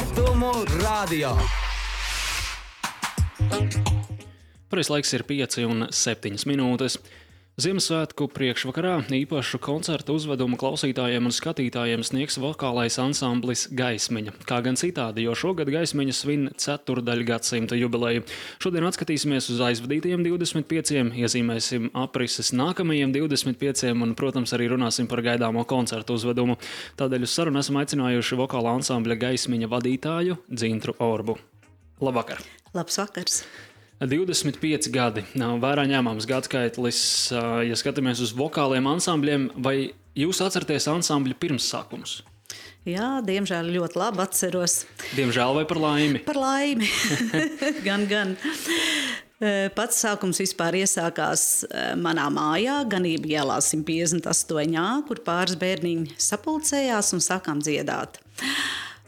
Rietumu radio. Pareizais laiks ir 5:07 minūtes. Ziemassvētku priekšvakarā īpašu koncertu uzvedumu klausītājiem un skatītājiem sniegs vokālais ansamblis Gaismiņa. Kā gan citādi, jo šogad Gaismiņa svin ceturdaļgadsimta jubileju. Šodien atskatīsimies uz aizvadītajiem 25, iezīmēsim aprises nākamajiem 25 un, protams, arī runāsim par gaidāmo koncertu uzvedumu. Tādēļ uz sarunu esam aicinājuši vokāla ansambļa Gaismiņa vadītāju Dzintru Orbu. Labvakar! Labs vakars! 25 gadi nav vērā ņēmams gadskaitlis, ja skatāmies uz vokāliem ansambļiem, vai jūs atceraties ansambļa pirmsākumus? Jā, diemžēl ļoti labi atceros. Diemžēl vai par laimi? Par laimi, gan. Pats sākums vispār iesākās manā mājā, Ganību ielā 158, kur pāris bērniņi sapulcējās un sākām dziedāt.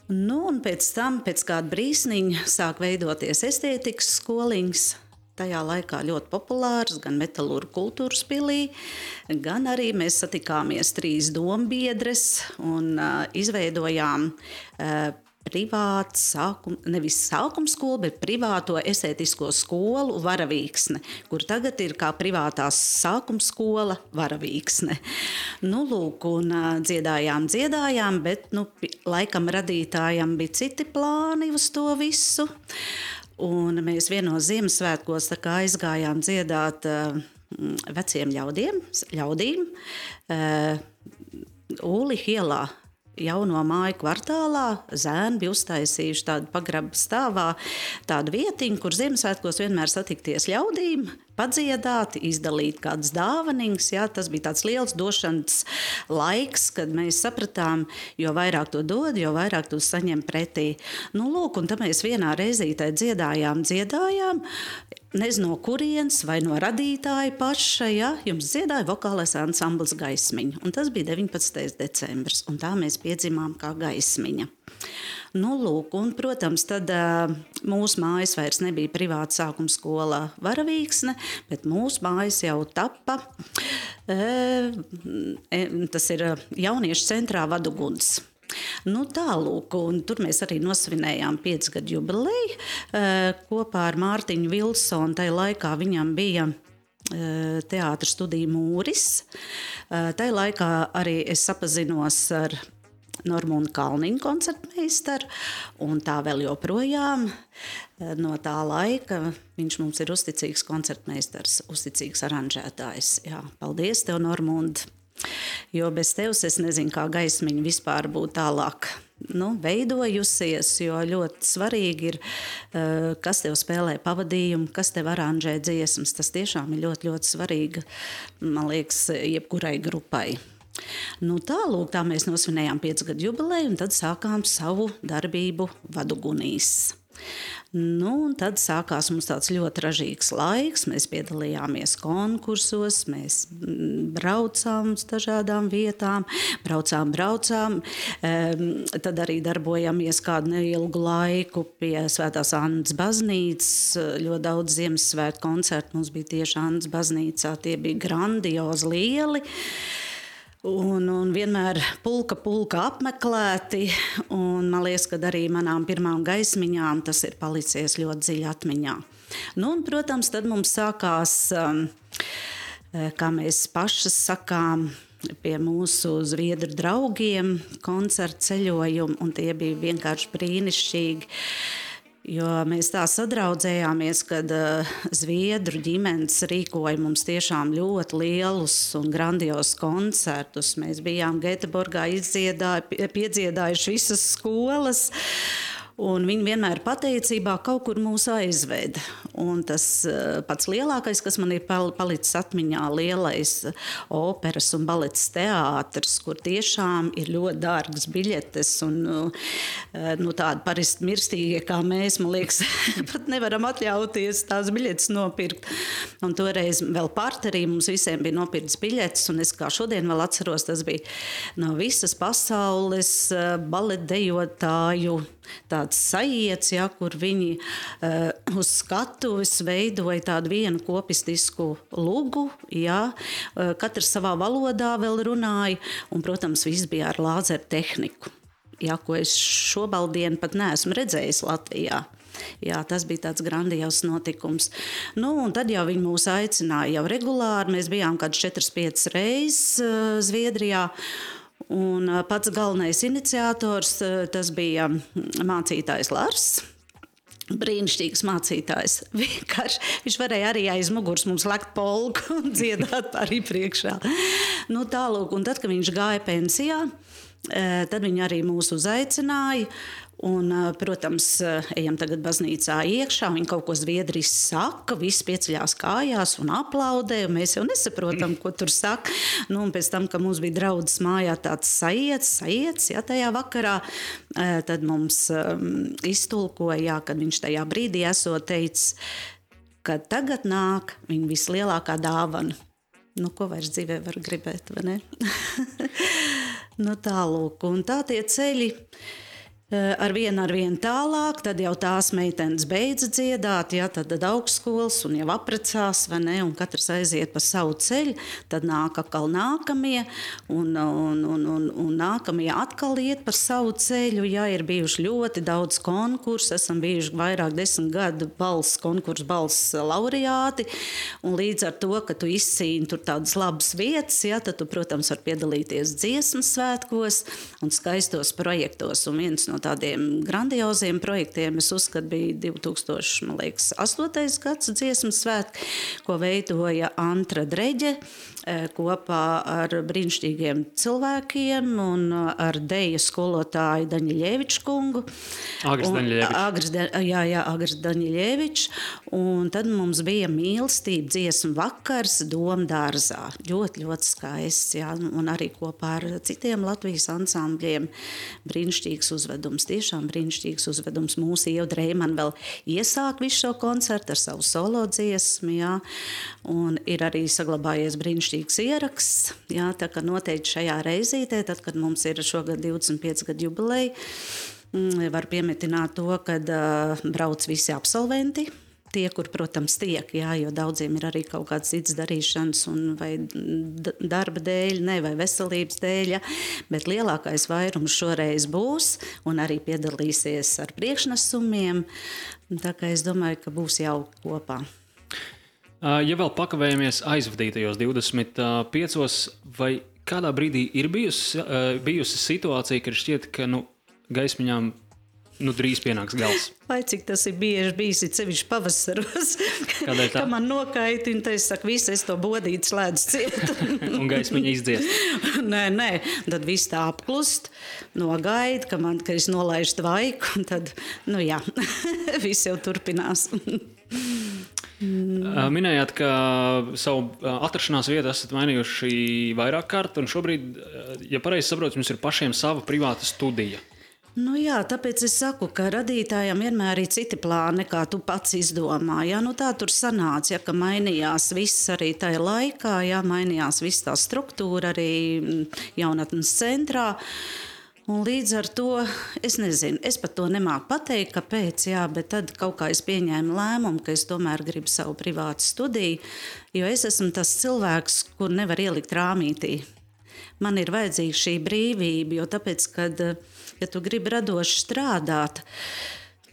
Un pēc tam, pēc kāda brīsniņa, sāk veidoties estētikas skoliņas. Tajā laikā ļoti populārs gan Metalurgu kultūras pilī, gan arī mēs satikāmies 3 dombiedres un izveidojām privātu nevis sākuma skolu, bet privāto estētisko skolu Varavīksne, kur tagad ir kā privātās sākuma skola Varavīksne. Lūk, un dziedājām, bet laikam radītājam bija citi plāni uz to visu. Un mēs vienos Ziemassvētkos aizgājām dziedāt veciem ļaudīm Ūliņa ielā. Jauno māju kvartālā zēni bija uztaisījuši tādu pagraba stāvā, tādu vietiņu, kur Ziemassvētkos vienmēr satikties ļaudīm, padziedāt, izdalīt kādas dāvaniņas. Jā, tas bija tāds liels došanas laiks, kad mēs sapratām, jo vairāk to dod, jo vairāk to saņem pretī. Lūk, un tad mēs vienā reizītē dziedājām, nezinu no kurienes vai no radītāja paša, ja, jums dziedāja vokālais ansamblis Gaismiņa. Un tas bija 19. decembris, un tā mēs piedzimām kā Gaismiņa. Lūk, un, protams, tad mūsu mājas vairs nebija privāta sākuma skola Varavīksne, bet mūsu mājas jau tappa, tas ir jauniešu centrā Vaduguns. Tālūk, un tur mēs arī nosvinējām 5 gadu jubileju kopā ar Mārtiņu Vilsonu. Tajā laikā viņam bija teātra studija Mūris. Tajā laikā arī es sapazinos ar Normūnu Kalniņu koncertmeistaru, un tā vēl joprojām no tā laika viņš mums ir uzticīgs koncertmeistars, uzticīgs aranžētājs. Jā, paldies tev, Normūnd! Jo bez tevis es nezinu, kā Gaismiņa vispār būtu tālāk veidojusies, jo ļoti svarīgi ir, kas tev spēlē pavadījumu, kas tev aranžē dziesmas. Tas tiešām ir ļoti, ļoti svarīgi, man liekas, jebkurai grupai. Tālūk, tā mēs nosvinējām 5 gadu jubileju, un tad sākām savu darbību Vadugunīs. Un tad sākās mums tāds ļoti ražīgs laiks. Mēs piedalījāmies konkursos, mēs braucām uz dažādām vietām, braucām. Tad arī darbojāmies kādu neilgu laiku pie Svētās Annas baznīcas. Ļoti daudz Ziemassvētku koncertu mums bija tieši Annas baznīcā. Tie bija grandiozi lieli. Un vienmēr pulka apmeklēti, un man liekas, ka arī manām pirmām Gaismiņām tas ir palicies ļoti dziļi atmiņā. Un, protams, tad mums sākās, kā mēs pašas sakām, pie mūsu zviedru draugiem koncertu ceļojumi, un tie bija vienkārši brīnišķīgi. Jo mēs tā sadraudzējāmies, kad zviedru ģimenes rīkoja mums tiešām ļoti lielus un grandiozus koncertus. Mēs bijām Gēteborgā piedziedājuši visas skolas, un viņi vienmēr pateicībā kaut kur mūs aizveda. Un tas pats lielākais, kas man ir palicis atmiņā, lielais operas un baletes teātris, kur tiešām ir ļoti dārgas biļetes, un tādi parasti mirstīgie kā mēs, man liekas, pat nevaram atļauties tās biļetes nopirkt. Un toreiz vēl parterī mums visiem bija nopirktas biļetes, un es kā šodien vēl atceros, tas bija no visas pasaules baletdejotāju tāds sajiets, ja, kur viņi uz skatuves veidoja tādu vienu kopistisku lugu, ja, katrs savā valodā vēl runāja, un, protams, viss bija ar lāzeru tehniku. jā, ko es šobaldienu pat neesmu redzējis Latvijā. Jā, tas bija tāds grandios notikums. Nu, un tad jau viņi mūs aicināja jau regulāri. Mēs bijām kāds 4-5 reizes Zviedrijā. Un pats galvenais iniciators, tas bija mācītājs Lars. Brīnišķīgs mācītājs. Vienkārši viņš varēja arī aiz muguras mums lekt polku un dziedāt arī priekšā. Nu, tālūk, un tad, kad viņš gāja pensijā, tad viņi arī mūs uzaicināja. Un, protams, ejam tagad baznīcā iekšā, viņi kaut ko zviedriski saka, visi pieceļās kājās un aplaudē, un mēs jau nesaprotam, ko tur saka. Nu, un pēc tam, kad mums bija draudzes mājā tāds sajiets, ja, tajā vakarā, tad mums iztulkoja, jā, kad viņš tajā brīdī esot teicis, ka tagad nāk viņa vislielākā dāvana. Nu, ko vairs dzīvē var gribēt, vai ne? Nu, tālūk, un tā tie ceļi ar vienu tālāk, tad jau tās meitenes beidza dziedāt, ja, tad augstskolas un jau aprecās, vai ne, un katrs aiziet pa savu ceļu, tad nāk atkal nākamie, un nākamie atkal iet pa savu ceļu, ja, ir bijuši ļoti daudz konkursu, esam bijuši vairāk 10 gadu konkursu laureāti, un līdz ar to, ka tu izcīni tur tādas labas vietas, ja, tad tu, protams, var piedalīties dziesmas svētkos un skaistos projektos, un viens no tādiem grandioziem projektiem, es uzskatu, bija 2008. gads dziesmas svētki, ko veidoja Antra Dreģe kopā ar brīnišķīgiem cilvēkiem un ar deju skolotāju Daņiļeviču kungu. Agris Daņiļevičs. Un tad mums bija mīlestība dziesmu vakars Domdārzā. Ļoti, ļoti skaists, jā, un arī kopā ar citiem Latvijas ansambļiem brīnišķīgs uzvedums. Tiešām brīnišķīgs uzvedums. Mūsu Ieva Dreiman vēl iesāk visu šo koncertu ar savu solo dziesmu, jā, un ir arī saglabājies brīnišķīgs ieraksts, jā, tā kā noteikti šajā reizītē, tad, kad mums ir šogad 25 gadu jubileja, var piemetināt to, kad brauc visi absolventi, tie, kur, protams, tiek, jā, jo daudziem ir arī kaut kāds cits darīšanas un vai darba dēļ, ne, vai veselības dēļ, ja, bet lielākais vairums šoreiz būs un arī piedalīsies ar priekšnesumiem, tā kā es domāju, ka būs jauki kopā. Ja vēl pakavējamies aizvadītajos 25, vai kādā brīdī ir bijusi situācija, kad šķiet, ka gaismiņām drīz pienāks gals? Vai cik tas ir bieži bijis, ir sevišķi pavasaros, ka man nokaitina, tad es saku, visu es to bodīti slēdzu ciet. Un gaismiņa izdziest? Nē, tad viss tā apklust, nogaida, ka es nolaižu tvaiku, un tad, jā, viss jau turpinās. Minējāt, ka savu atrašanās vietu esat mainījuši vairāk kārt, un šobrīd, ja pareizi saprotu, jums ir pašiem sava privāta studija. Jā, tāpēc es saku, ka radītājiem vienmēr ir citi plāni, nekā tu pats izdomā. Jā, tā tur sanāca, ja, ka mainījās viss arī tajā laikā, jā, mainījās viss tā struktūra arī jaunatnes centrā. Un līdz ar to, es nezinu, es pat to nemāku pateikt, kāpēc, jā, bet tad kaut kā es pieņēmu lēmumu, ka es tomēr gribu savu privātu studiju, jo es esmu tas cilvēks, kur nevar ielikt rāmītī. Man ir vajadzīga šī brīvība, jo tāpēc, kad, ja tu gribi radoši strādāt,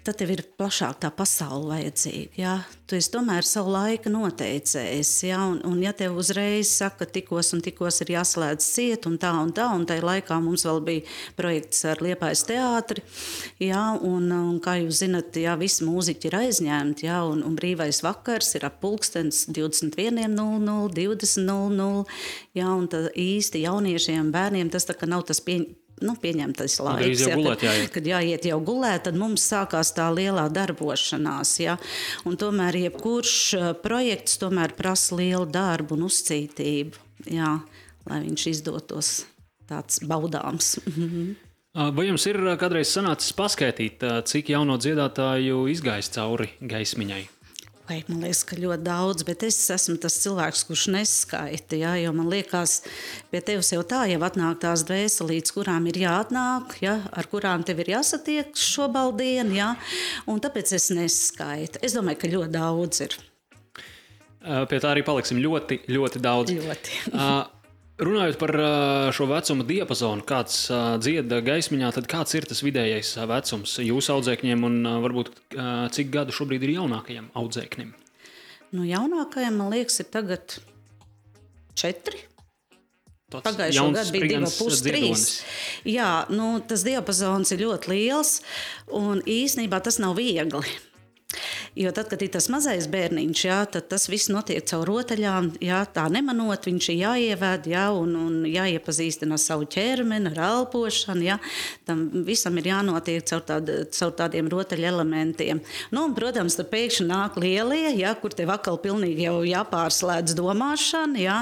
tad tev ir plašāk tā pasaule vajadzīga. Jā. Tu esi tomēr savu laiku noteicējis. Jā. Un ja tev uzreiz saka, tikos un tikos ir jāslēdz ciet un tai laikā mums vēl bija projekts ar Liepājas teātri. Jā, un kā jūs zinat, jā, visi mūziķi ir aizņemti. Jā, un brīvais vakars ir ap pulkstens 21:00, 20:00. Jā, un īsti jauniešiem, bērniem tas tā kā nav tas pieņemtais laiks, kad jāiet jau gulēt, tad mums sākās tā lielā darbošanās. Ja? Un tomēr jebkurš projekts tomēr prasa lielu darbu un uzcītību, ja? Lai viņš izdotos tāds baudāms. Vai jums ir kādreiz sanācis paskaitīt, cik jauno dziedātāju izgājis cauri gaismiņai? Vai, man liekas, ka ļoti daudz, bet es esmu tas cilvēks, kurš neskaita, ja, jo man liekas, pie tevis jau tā jau atnāk tās dvēselītes, kurām ir jāatnāk, ja, ar kurām tev ir jāsatiek šobaldien, ja, un tāpēc es neskaitu. Es domāju, ka ļoti daudz ir. Pie tā arī paliksim ļoti, ļoti daudz. Ļoti. Runājot par šo vecuma diapazonu, kāds dzied gaismiņā, tad kāds ir tas vidējais vecums jūsu audzēkņiem un varbūt cik gadu šobrīd ir jaunākajam audzēknim? Jaunākajam, man liekas, ir tagad 4. Pagājušo gadu bija 2,5, 3. Jā, tas diapazons ir ļoti liels, un īsnībā tas nav viegli. Jo tad, kad ir tas mazais bērniņš, tad tas viss notiek caur rotaļām, tā nemanot, viņš ir jāievēd, un jāiepazīstina ar savu ķermeni, ar elpošanu, tam visam ir jānotiek caur tādiem rotaļu elementiem. Un, protams, tad pēkšņi nāk lielie, kur tev atkal pilnīgi jau jāpārslēdz domāšana,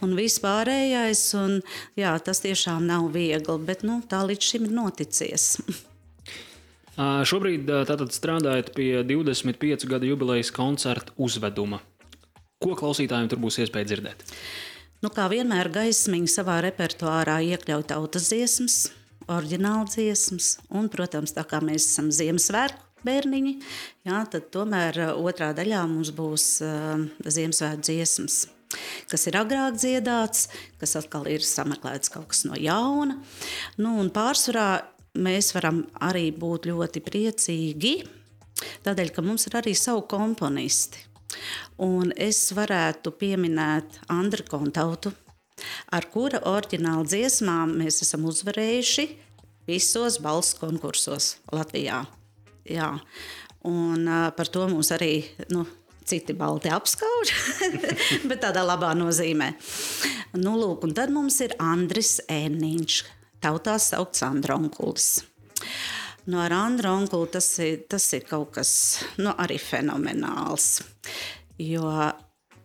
un viss pārējais, un tas tiešām nav viegli, bet tā līdz šim ir noticies. Šobrīd tātad strādājat pie 25 gadu jubilejas koncerta uzveduma. Ko klausītājiem tur būs iespēja dzirdēt? Kā vienmēr gaismiņa savā repertuārā iekļauj tautas dziesmas, oriģināla dziesmas, un, protams, tā kā mēs esam Ziemassvētku bērniņi, tad tomēr otrā daļā mums būs Ziemassvētku dziesmas, kas ir agrāk dziedāts, kas atkal ir sameklēts kaut kas no jauna. Un pārsvarā mēs varam arī būt ļoti priecīgi, tādēļ, ka mums ir arī savu komponisti. Un es varētu pieminēt Andri Kontautu, ar kura oriģināla dziesmām mēs esam uzvarējuši visos balss konkursos Latvijā. Jā. Un par to mums arī citi balti apskauž, bet tādā labā nozīmē. Lūk, un tad mums ir Andris Ēniņš, tautā saukts Andra onkulis. Ar Andra onkuli tas ir kaut kas arī fenomenāls, jo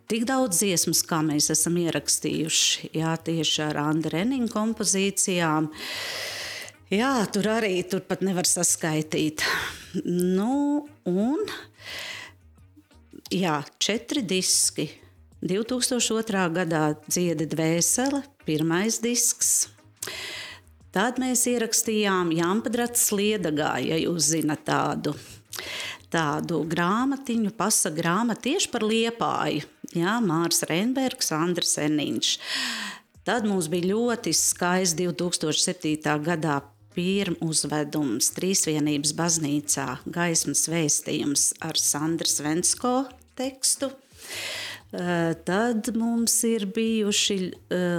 tik daudz dziesmas, kā mēs esam ierakstījuši, tieši ar Andra Ēniņa kompozīcijām, tur pat nevar saskaitīt. Un 4 diski. 2002. gadā Dziedi dvēsele, 1. disks. Tad mēs ierakstījām Jāmpadrats Liedagā, ja jūs zinat tādu grāmatiņu, pasa grāmatu tieši par Liepāju. Mārs Reinbergs, Andris Ēniņš. Tad mums bija ļoti skaists 2007. gadā pirmuzvedums Trīsvienības baznīcā Gaismas vēstījums ar Sandras Vensko tekstu. Tad mums ir bijuši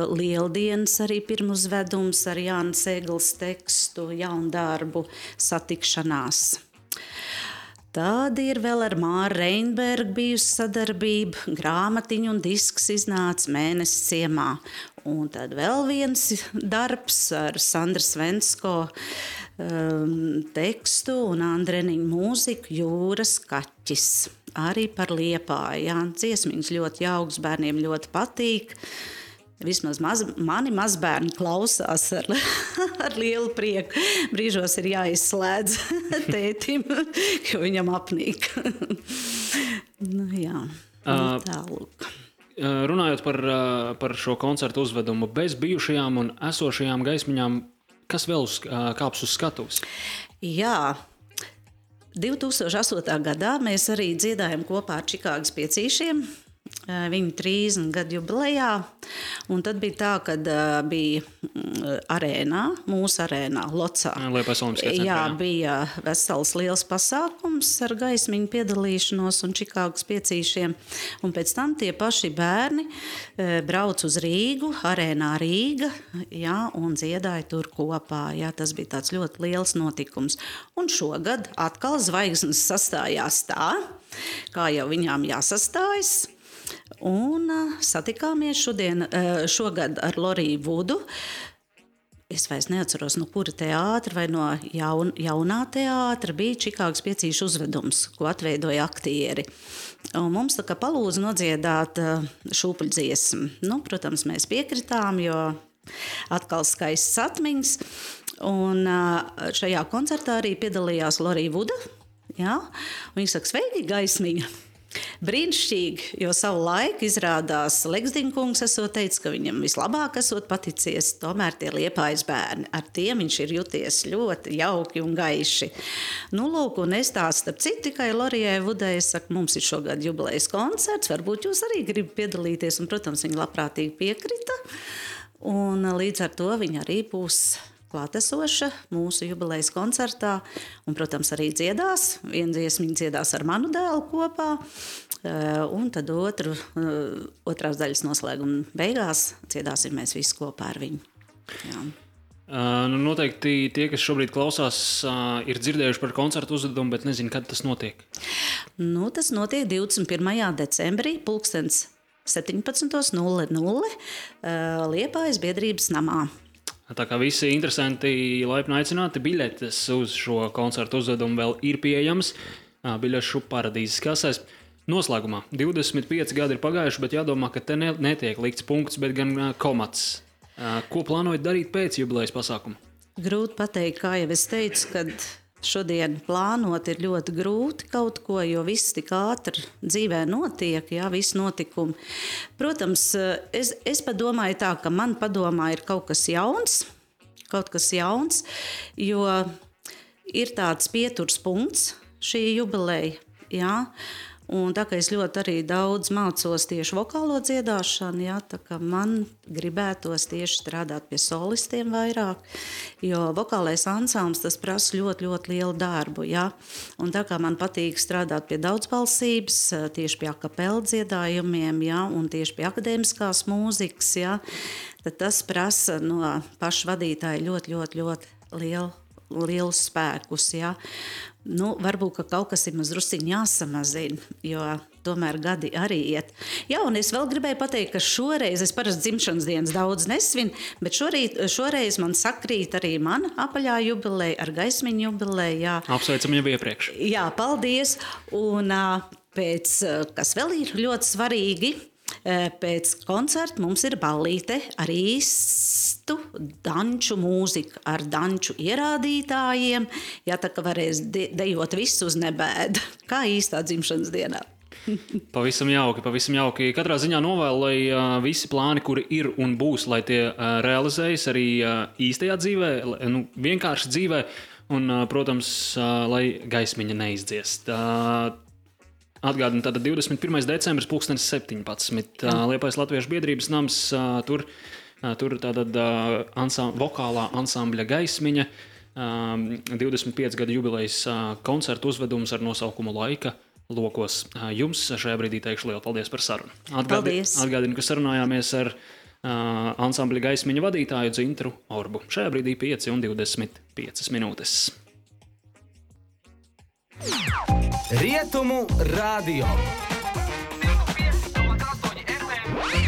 Lieldienas arī pirmuzvedums ar Jāna Seglas tekstu, jaundarbu satikšanās. Tad ir vēl ar Māru Reinbergu bijusi sadarbība, grāmatiņa un disks iznāca Mēnesis ciemā. Un tad vēl viens darbs ar Sandras Vensko tekstu un Andra Ēniņa mūziku Jūras kaķis. Arī par Liepāju. Dziesmiņas ļoti jauks, bērniem ļoti patīk. Vismaz mani mazbērni klausās ar lielu prieku. Brīžos ir jāizslēdz tētim, jo viņam apnīk. Tālūk. Runājot par šo koncertu uzvedumu, bez bijušajām un esošajām gaismiņām, kas vēl kāps uz skatuves? 2008. gadā mēs arī dziedājam kopā ar Čikāgas piecīšiem, viņu 30 gadu jubilejā, un tad bija tā, kad bija arēnā, mūsu arēnā, Locā. Bija vesels liels pasākums ar gaismiņu piedalīšanos un Čikāgas piecīšiem, un pēc tam tie paši bērni brauc uz Rīgu, arēnā Rīga, un dziedāja tur kopā. Tas bija tāds ļoti liels notikums. Un šogad atkal zvaigznes sastājās tā, kā jau viņām jāsastājas. Un satikāmies šogad ar Loriju Vudu. Es vairs neatceros, no kura teātra vai no jaunā teātra bija Čikāgas piecīšu uzvedums, ko atveidoja aktieri. Un mums tā kā palūdza nodziedāt šūpuļdziesmu. Protams, mēs piekritām, jo atkal skaists atmiņas. Un šajā koncertā arī piedalījās Lorija Vuda. Viņa saka, sveiki, gaismiņa! Brīnišķīgi, jo savu laiku izrādās Leksdiņkungs esot teicis, ka viņam vislabāk esot paticies tomēr tie Liepājas bērni. Ar tiem viņš ir juties ļoti jauki un gaiši. Lūk, un es tās starp citu tikai Lorijai Vudai saku, mums ir šogad jubilejas koncerts, varbūt jūs arī gribat piedalīties, un, protams, viņa labprātīgi piekrita. Un līdz ar to viņa arī būs klātesoša mūsu jubilejas koncertā. Un, protams, arī dziedās. Vienu dziesmiņu dziedās ar manu dēlu kopā. Un tad otrās daļas noslēguma beigās dziedāsim mēs visi kopā ar viņu. Jā. Noteikti tie, kas šobrīd klausās, ir dzirdējuši par koncertu uzvedumu, bet nezinu, kad tas notiek. Tas notiek 21. decembrī, 17:00 Liepājas biedrības namā. Tā kā visi interesanti laipni aicināti, biļetes uz šo koncertu uzvedumu vēl ir pieejamas biļešu paradīzes kasēs. Noslēgumā 25 gadi ir pagājuši, bet jādomā, ka te netiek likts punkts, bet gan komats. Ko plānojat darīt pēc jubilejas pasākuma? Grūti pateikt, kā jau es teicu, kad šodien plānot ir ļoti grūti kaut ko, jo viss tik ātri dzīvē notiek, jā, visi notikumi. Protams, es padomāju tā, ka man padomā ir kaut kas jauns, jo ir tāds pieturs punkts šī jubileja, jā. Un tā kā es ļoti arī daudz mācos tieši vokālo dziedāšanu, jā, tā kā man gribētos tieši strādāt pie solistiem vairāk, jo vokālais ansamblis tas prasa ļoti, ļoti lielu darbu, jā. Un tā kā man patīk strādāt pie daudzbalsības, tieši pie akapela dziedājumiem, jā, un tieši pie akadēmiskās mūzikas, jā, tad tas prasa no paša vadītāja ļoti, ļoti, ļoti lielus spēkus, jā. Varbūt, ka kaut kas ir mazliet jāsamazina, jo tomēr gadi arī iet. Jā, un es vēl gribēju pateikt, ka šoreiz, es parasti dzimšanas dienas daudz nesvinu, bet šoreiz man sakrīt arī mana apaļā jubileja ar Gaismiņu jubileju. Jā. Apsveicam jau iepriekš. Jā, paldies. Un kas vēl ir ļoti svarīgi, pēc koncerta mums ir ballīte ar īstu danču mūziku, ar danču ierādītājiem. Jā, tā kā varēs dejot visu uz nebēdu, kā īstā dzimšanas dienā. Pavisam jauki. Katrā ziņā novēlu, lai visi plāni, kuri ir un būs, lai tie realizējas arī īstajā dzīvē, vienkārši dzīvē, un, protams, lai gaismiņa neizdziest. Atgādinu, tātad 21. decembris 17:00 Liepājas Latviešu biedrības nams, tur tātad vokālā ansambļa Gaismiņa, 25 gadu jubilejas koncertu uzvedums ar nosaukumu Laika lokos. Jums šajā brīdī teikšu lielu paldies par sarunu. Atgādinu, ka sarunājāmies ar ansambļa Gaismiņa vadītāju Dzintru Orbu. Šajā brīdī 5:25 minūtes. Rietumu radio.